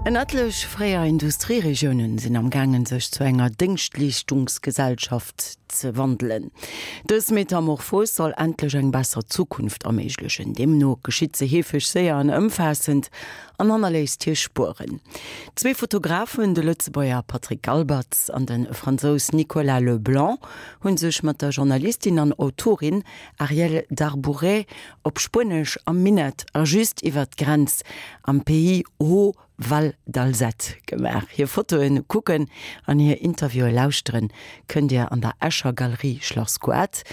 En etlech fréier Industrieregiounen sinn am gaangen sech zu enger Déngschtleeschtungsgesellschaft ze wandelen. Dës Metamorphos soll endlech eng besser Zukunft erméiglechen. Deemno geschitt se heefeg séier an ëmfaassend an hannerléisst hir Spueren. Zwee Fotografen, de Lëtzebuerger Patrick Galbertz an de Fransous Nicolas Leblanc, hu sech mat der Journalistin an Autorin Arielle Darbouret op Spuenesch am Minett a just iwwert d'Grenz am Pays Haut Val d'Alzette gemaach. Hir Fotoen kucken an hir Interviewe lauschteren kënnt Dir an der Escher Galerie Schlass Goart.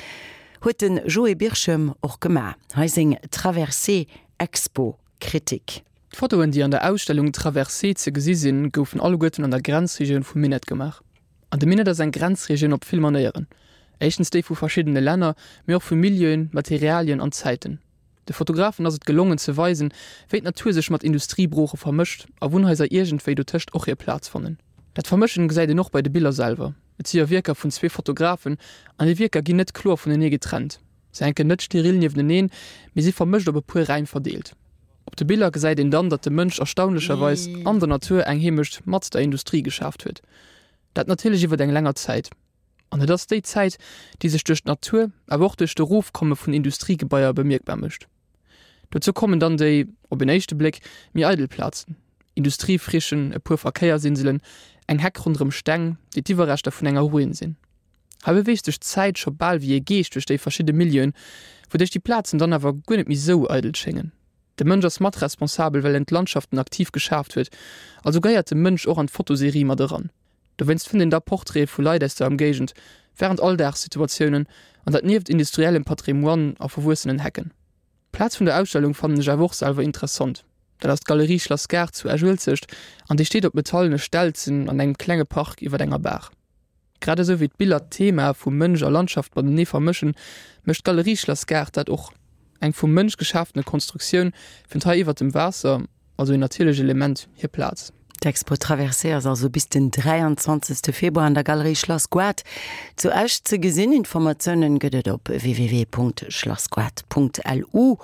Huet de Joé Birchem och gemaach. Hei seng Traversée Expo Kritik. D'Fotoen, déi an der Ausstellung Traversée ze gesi sinn, goufen alleguerten an der Grenzregioun vum Minett gemaach. An de Minett ass eng Grenzregioun op vill Manéieren. Éischtens déi vu verschiddene Länner, mee och vu Milieuen, Materialien an Zäiten. De Fotografen ass et gelongen ze weisen, wéi d'Natur sech mat Industriebrooche vermëscht a Wunnhaiser iergendwéi dotëscht och hir Plaz fannen. Dat Vermëschen gesäit een och bei de Biller selwer. Et si jo Wierker vun zwee Fotografen an déi Wierker ginn net kloer vunenee getrennt. Se hänken net steril niefteneen, mee si vermëscht op e puer Räim verdeelt. Op de Biller gesäit een dann, datt de Mënsch erstaunlecherweis an der Natur eng Heemecht mat der Industrie geschaaft huet. Dat natierlech iwwert eng länger Zäit. An et ass déi Zäit, déi sech duerch d'Natur, awer och duerch d'Erofkomme vun Industriegebaier bemierkbar mécht. Dozou kommen dann déi, op en éischte Bléck, méi eidel Plazen, Industriefrichen, e puer Verkéiersinselen, eng Heck ronderëm Steng, déi d'Iwwerreschter vun enger Ruin sinn. Hei beweegt sech d'Zäit scho bal wéi e Geescht duerch déi verschidde Milieuen, wouduerch déi Plazen dann awer guer net méi sou eidel schéngen. De Mënsch ass mat responsabel, well en d'Landschaften aktiv geschaaft huet, also gehéiert de Mënsch och an d'Fotoserie mat eran. Dowéinst fënnt een da Portraite vu Leit aus der Emgéigend, wärend Alldagssituatiounen, an dat nieft industriellem Patrimoine a verwuessenen Hecken. D'Plaz vun der Ausstellung fannen ech awer och selwer interessant. Dat ass d'Galerie Schlass Gaart zu Esch-Uelzecht an déi steet op metallene Stelzen an engem klenge Park iwwer enger Baach. Grad esou wéi d'Biller d'Thema vu Mënsch a Landschaft matenee vermëschen, mécht d'Galerie Schlass Gaart dat och. Eng vum Mënsch geschaftene Konstruktioun fënnt hei iwwer dem Waasser, also een natierlecht Element, hir Plaz. D'Expo Traversée ass also bis den 23 Februar an der Galerie Schlass Goart zu Esch ze gesinn. Informatiounen gëtt et op www.schlassgoart.lu.